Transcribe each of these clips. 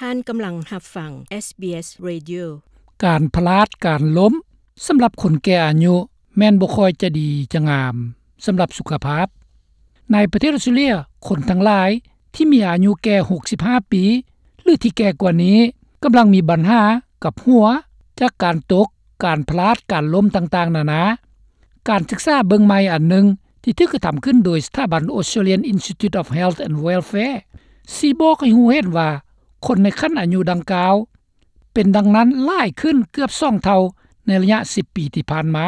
ທ່ານກຳລັງຮັບຟັງ ເອສບີເອສ Radio. ການພະລາດ ການລົ້ມ ສຳລັບຄົນແກ່ອາຍຸ ແມ່ນບໍ່ຄ່ອຍຈະດີຈະງາມສຳລັບສຸຂະພາບ. ໃນປະເທດອອສເຕຣເລຍ, ຄົນທັງຫຼາຍທີ່ມີອາຍຸແກ່ ຫົກສິບຫ້າ ປີ ຫຼື ທີ່ແກ່ກວ່ານີ້ ກຳລັງມີບັນຫາກັບຫົວ ຈາກການຕົກ, ການພະລາດ, ການລົ້ມຕ່າງໆນານາ. ການສຶກສາເບິ່ງໃໝ່ອັນໜຶ່ງ ທີ່ຖືກກະທຳຂຶ້ນໂດຍສະຖາບັນ Australian Institute of Health and Welfare ຊີ້ບອກໃຫ້ຮູ້ເຫັນວ່າ ຄົນໃນຂັ້ນອາຍຸດັ່ງກ່າວ ເປັນດັ່ງນັ້ນຫຼາຍຂຶ້ນເກືອບສອງເທົ່າໃນໄລຍະສິບປີທີ່ຜ່ານມາ.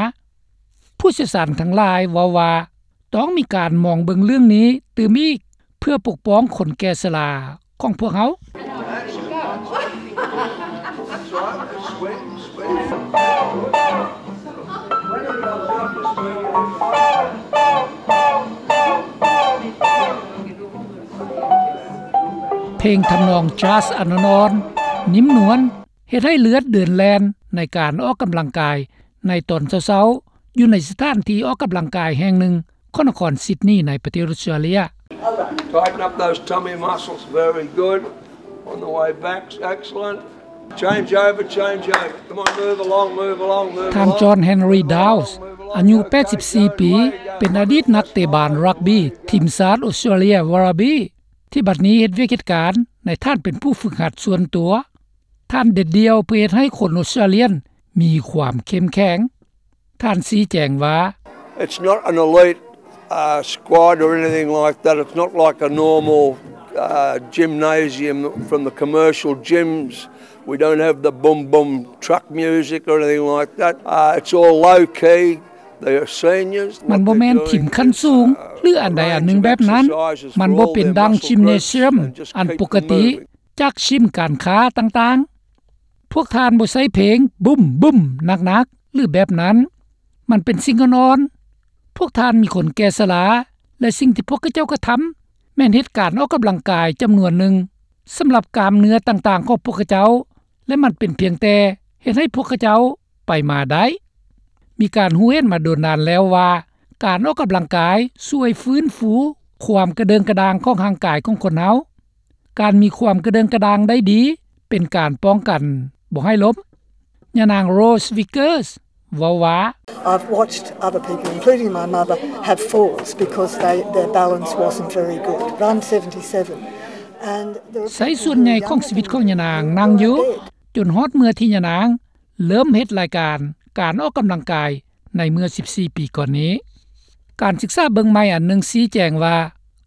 ຜູ້ຊ່ຽວຊານທັງຫຼາຍເວົ້າວ່າ ຕ້ອງມີການມອງເບິ່ງເລື່ອງນີ້ຕື່ມອີກ ເພື່ອປົກປ້ອງຄົນແກ່ຊະລາຂອງພວກເຮົາ. ເພງທຳນອງຈາສອ່ອນໆ ນຸ້ມນວນ ເຮັດໃຫ້ເລືອດເດີນແລ່ນໃນການອອກກຳລັງກາຍໃນຕອນເຊົ້າໆ ຢູ່ໃນສະຖານທີ່ອອກກຳລັງກາຍແຫ່ງໜຶ່ງຂອງນະຄອນຊິດນີ ໃນປະເທດອອສເຕຣເລຍ. Tighten up those tummy muscles. Very good. On the way back. Excellent. Change over, change over. Come on, move along, move along, move along. ທ່ານ John Henry Dowse ອາຍຸແປດສິບສີ່ປີ ເປັນອະດີດນັກເຕະບານຣັກບີທີມຊາດອອສເຕຣເລຍ ວາຣາບີ ທີ່ບັດນີ້ເຮັດວຽກເຮັດການໃນຖານເປັນຜູ້ຝຶກຫັດສ່ວນຕົວ. ທ່ານເດັດດ່ຽວເພື່ອເຮັດໃຫ້ຄົນອອສເຕຣເລຍມີຄວາມເຂັ້ມແຂງ. ທ່ານຊີ້ແຈງວ່າ It's not an elite, uh, squad or anything like that. It's not like a normal, uh, gymnasium from the commercial gyms. We don't have the boom boom truck music or anything like that. Uh, it's all low key. They are seniors. ມັນບໍ່ແມ່ນທີມຂັ້ນສູງ ຫຼື ອັນໃດອັນໜຶ່ງແບບນັ້ນ. ມັນບໍ່ເປັນດັ່ງຢິມເນຊຽມອັນປົກກະຕິຈາກຊິມການຄ້າຕ່າງໆ. ພວກທ່ານບໍ່ໃຊ້ເພງບຸ້ມໆ ໜັກໆ ຫຼື ແບບນັ້ນ. ມັນເປັນສິ່ງອ່ອນໆ. ພວກທ່ານມີຄົນແກ່ຊະລາ ແລະ ສິ່ງທີ່ພວກເຂົາເຈົ້າກະທຳ ແມ່ນເຮັດການອອກກຳລັງກາຍຈຳນວນໜຶ່ງ ສຳລັບກ້າມເນື້ອຕ່າງໆຂອງພວກເຂົາເຈົ້າ ແລະ ມັນເປັນພຽງແຕ່ເຮັດໃຫ້ພວກເຂົາເຈົ້າໄປມາໄດ້. ມີການຮູ້ເຫັນມາດົນນານແລ້ວວ່າ ການອອກກຳລັງກາຍຊ່ວຍຟື້ນຟູຄວາມກະເດີງກະດາງຂອງຮ່າງກາຍຂອງຄົນເຮົາ. ການມີຄວາມກະເດີງກະດາງໄດ້ດີ ເປັນການປ້ອງກັນບໍ່ໃຫ້ລົ້ມ. ຍານາງ Rose Vickers ເວົ້າວ່າ I've watched other people, including my mother, have falls because they, their balance wasn't very good. I'm seventy-seven. And there are ໃຊ້ສ່ວນໃຫຍ່ຂອງຊີວິດຂອງຍານາງນັ່ງຢູ່ ຈົນຮອດເມື່ອທີ່ຍານາງເລີ່ມເຮັດລາຍການການອອກກຳລັງກາຍ ໃນເມື່ອສິບສີ່ປີກ່ອນນີ້. ການສຶກສາເບິ່ງໃໝ່ອັນໜຶ່ງຊີ້ແຈງວ່າ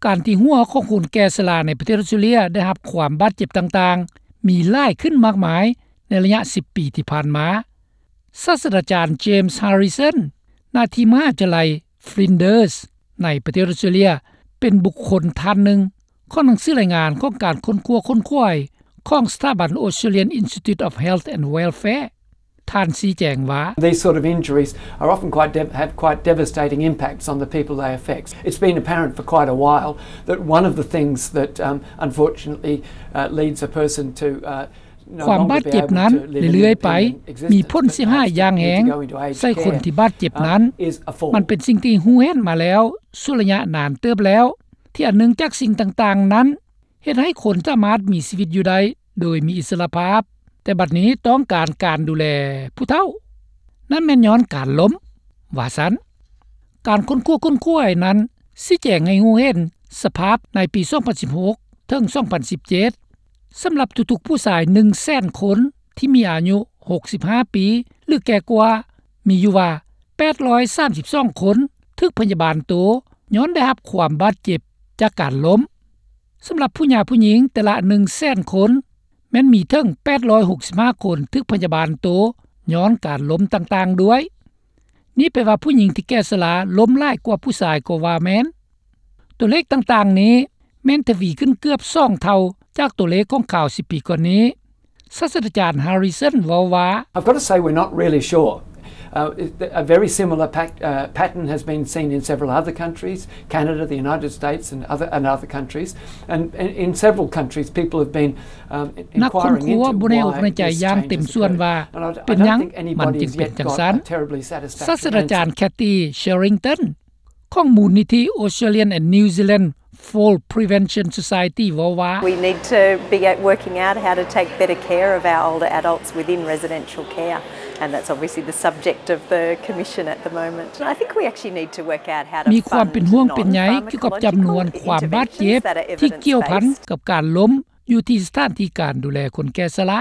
ການທີ່ຫົວຂອງຄົນແກ່ຊະລາໃນປະເທດອອສເຕຣເລຍໄດ້ຮັບຄວາມບາດເຈັບຕ່າງໆ ມີຫຼາຍຂຶ້ນມາກມາຍໃນໄລຍະສິບປີທີ່ຜ່ານມາ. ສາດສະດາຈານ James Harrison ນາທີ່ມະຫາວິທະຍາໄລ Flinders ໃນປະເທດອອສເຕຣເລຍ ເປັນບຸກຄົນທ່ານໜຶ່ງຂອງໜັງສືລາຍງານຂອງການຄົ້ນຄວ້າຂົນຂວາຍຂອງສະຖາບັນ Australian Institute of Health and Welfare. ທ່ານຊີ້ແຈງວ່າ These sort of injuries are often quite dev-, have quite devastating impacts on the people they affect. It's been apparent for quite a while that one of the things that, um, unfortunately, uh, leads a person to, uh, no longer be able to live an independent existence, but perhaps to need to go into aged care, um, is a fall. ຄວາມບາດເຈັບນັ້ນເລື້ອຍໆໄປມີຜົນເສຍຫາຍຢ່າງແຮງໃສ່ຄົນທີ່ບາດເຈັບນັ້ນ. ມັນເປັນສິ່ງທີ່ຮູ້ເຫັນມາແລ້ວ ຊົ່ວໄລຍະນານເຕີບແລ້ວ ທີ່ອັນໜຶ່ງຈາກສິ່ງຕ່າງໆນັ້ນ ເຮັດໃຫ້ຄົນສາມາດມີຊີວິດຢູ່ໄດ້ໂດຍມີອິດສະຫຼະພາບ, ແຕ່ບັດນີ້ຕ້ອງການການດູແລຜູ້ເຖົ້າ. ນັ້ນແມ່ນຍ້ອນການລົ້ມ, ວ່າຊັ້ນ. ການຄົ້ນຄວ້າຄົ້ນຄວາຍນັ້ນຊີ້ແຈງໃຫ້ຮູ້ເຫັນສະພາບໃນປີສອງພັນສິບຫົກເຖິງສອງພັນສິບເຈັດ ສຳລັບທຸກໆຜູ້ຊາຍໜຶ່ງແສນຄົນທີ່ມີອາຍຸຫົກສິບຫ້າປີ ຫຼື ແກ່ກວ່າ, ມີຢູ່ວ່າແປດຮ້ອຍສາມສິບສອງຄົນຖືກພະຍາບານໂຕຍ້ອນໄດ້ຮັບຄວາມບາດເຈັບຈາກການລົ້ມ. ສຳລັບຜູ້ຫຍ່າຜູ້ຍິງແຕ່ລະໜຶ່ງແສນຄົນ ແມ່ນມີເຖິງແປດຮ້ອຍຫົກສິບຫ້າຄົນຖືກພະຍາບານໂຕຍ້ອນການລົ້ມຕ່າງໆດ້ວຍ. ນີ້ແປວ່າຜູ້ຍິງທີ່ແກ່ຊະລາລົ້ມຫຼາຍກວ່າຜູ້ຊາຍກໍວ່າແມ່ນ. ຕົວເລກຕ່າງໆນີ້ແມ່ນທະວີຂຶ້ນເກືອບສອງເທົ່າຈາກຕົວເລກຂອງຄາວສິບປີກ່ອນນີ້. ສາດສະດາຈານ Harrison ເວົ້າວ່າ I've got to say we're not really sure. Uh, it, a very similar pac-, uh, pattern has been seen in several other countries, Canada, the United States and other, and other countries. And in, in several countries, people have been, um, inquiring into why this change has occurred. ນັກຄົ້ນຄວ້າບໍ່ໄດ້ອອກໃນໃຈຢ່າງເຕັມສ່ວນວ່າເປັນຫຍັງມັນຈຶ່ງເປັນຈັ່ງຊັ້ນ. ສາດສະດາຈານ Cathy Sherrington ຂອງມູນນິທິ Australian and New Zealand Fall Prevention Society ເວົ້າວ່າ We need to be working out how to take better care of our older adults within residential care, and that's obviously the subject of the commission at the moment. I think we actually need to work out how to ມີຄວາມເປັນຫ່ວງເປັນໃຍກ່ຽວກັບຈຳນວນຄວາມບາດເຈັບທີ່ກ່ຽວພັນກັບການລົ້ມຢູ່ທີ່ສະຖານທີ່ການດູແລຄົນແກ່ຊະລາ.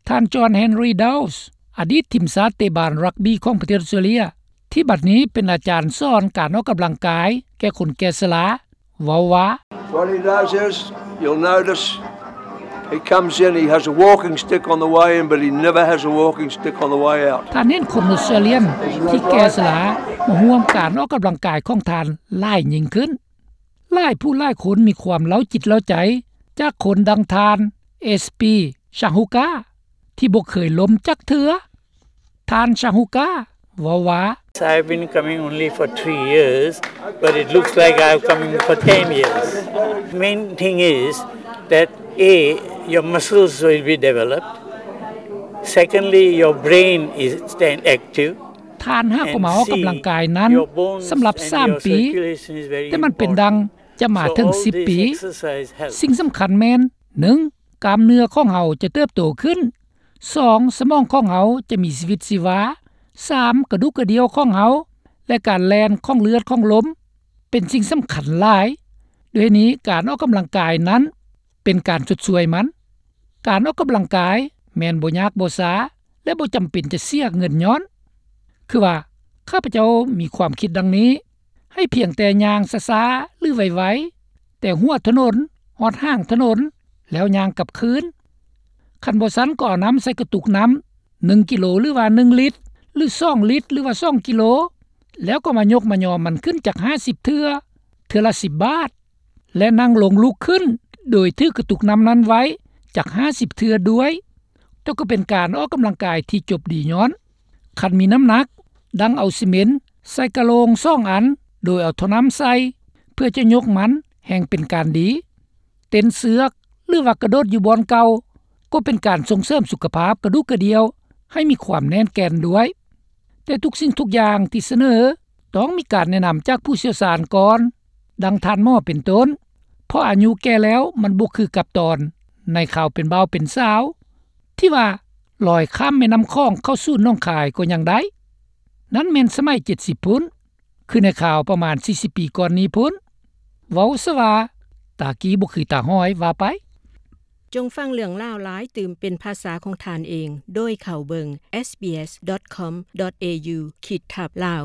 ທ່ານ John Henry Dowles ອະດີດທີມຊາດເຕະບານຣັກບີຂອງປະເທດອອສເຕຣເລັຽ ທີ່ບັດນີ້ເປັນອາຈານສອນການອອກກຳລັງກາຍແກ່ຄົນແກ່ຊະລາ ເວົ້າວ່າ What he does is, you'll notice, he comes in, he has a walking stick on the way in, but he never has a walking stick on the way out. ທ່ານເຫັນຄົນອົດສະຕຣາລຽນທີ່ແກ່ຊະລາມາຮ່ວມການອອກກຳລັງກາຍຂອງທ່ານຫຼາຍຍິ່ງຂຶ້ນ. ຫຼາຍຜູ້ຫຼາຍຄົນມີຄວາມເລົ່າຈິດເລົ່າໃຈຈາກຄົນດັ່ງທ່ານ S P Shahuka ທີ່ບໍ່ເຄີຍລົ້ມຈັກເທື່ອ. ທ່ານ Shahuka ເວົ້າວ່າ I've been coming only for three years, but it looks like I've coming for ten years. Main thing is that A, your muscles will be developed. Secondly, your brain is staying active. ທ່ານຫາກໍມາອອກກຳລັງກາຍນັ້ນສຳລັບສາມປີ, ແຕ່ມັນເປັນດັ່ງຈະມາເຖິງສິບປີ. ສິ່ງສຳຄັນແມ່ນ ໜຶ່ງ ກ້າມເນື້ອຂອງເຮົາຈະເຕີບໂຕຂຶ້ນ, ສອງ ສະໝອງຂອງເຮົາຈະມີຊີວິດຊີວາ, ສາມ ກະດູກກະດ່ຽວຂອງເຮົາ ແລະ ການແລ່ນຂອງເລືອດຂອງລົມ ເປັນສິ່ງສຳຄັນຫຼາຍ. ດ້ວຍນີ້ ການອອກກຳລັງກາຍນັ້ນເປັນການຊົດຊ່ວຍມັນ. ການອອກກຳລັງກາຍແມ່ນບໍ່ຍາກບໍ່ຊ້າ ແລະ ບໍ່ຈຳເປັນຈະເສຍເງິນຍ້ອນ. ຄືວ່າ ຂ້າພະເຈົ້າມີຄວາມຄິດດັ່ງນີ້, ໃຫ້ພຽງແຕ່ຍ່າງຊ້າໆ ຫຼື ໄວໆ ແຕ່ຫົວຖະໜົນຮອດຫາງຖະໜົນ ແລ້ວຍ່າງກັບຄືນ. ຄັນບໍ່ຊັ້ນກໍເອົານ້ຳໃສ່ກະຕຸກນ້ຳ ໜຶ່ງກິໂລ ຫຼືວ່າໜຶ່ງລິດ ຫຼືສອງລິດ ຫຼືວ່າສອງກິໂລ ແລ້ວກໍມາຍົກມາຍໍມັນຂຶ້ນຈັກຫ້າສິບເທື່ອ ເທື່ອລະສິບບາດ ແລະ ນັ່ງລົງລຸກຂຶ້ນ ໂດຍຖືກະຕຸກນ້ຳນັ້ນໄວ້ຈັກຫ້າສິບເທື່ອດ້ວຍ. ແຕ່ກໍເປັນການອອກກຳລັງກາຍທີ່ຈົບດີຍ້ອນ ຄັນມີນ້ຳໜັກ ດັ່ງເອົາຊີເມັນໃສ່ກະໂລງສອງອັນ ໂດຍເອົາທໍ່ນ້ຳໃສ່ ເພື່ອຈະຍົກມັນແຮ່ງເປັນການດີ. ເຕັ້ນເຊືອກ ຫຼືວ່າກະໂດດຢູ່ບ່ອນເກົ່າ ກໍເປັນການສົ່ງເສີມສຸຂະພາບກະດູກກະດ່ຽວໃຫ້ມີຄວາມແໜ້ນແກ່ນດ້ວຍ. ແຕ່ທຸກສິ່ງທຸກຢ່າງທີ່ສະເໜີ ຕ້ອງມີການແນະນຳຈາກຜູ້ຊ່ຽວຊານກ່ອນ, ດັ່ງທ່ານໝໍເປັນຕົ້ນ, ເພາະອາຍຸແກ່ແລ້ວມັນບໍ່ຄືກັບຕອນໃນຄາວເປັນບ່າວເປັນສາວ ທີ່ວ່າລອຍຂ້າມແມ່ນ້ຳຂອງເຂົ້າສູ່ໜອງຄາຍກໍຍັງໄດ້. ນັ້ນແມ່ນສະໄໝເຈັດສິບພຸ້ນ, ຄືໃນຄາວປະມານສີ່ສິບປີກ່ອນນີ້ພຸ້ນ. ເວົ້າຊະວ່າ ຕາກີ້ບໍ່ຄືຕາຫ້ອຍວ່າໄປ. ຈົ່ງຟັງເລື່ອງລາວຫຼາຍຕື່ມເປັນພາສາຂອງທ່ານເອງ ໂດຍເຂົ້າເບິ່ງ SBS.com.au ຂີດທັບ Lao.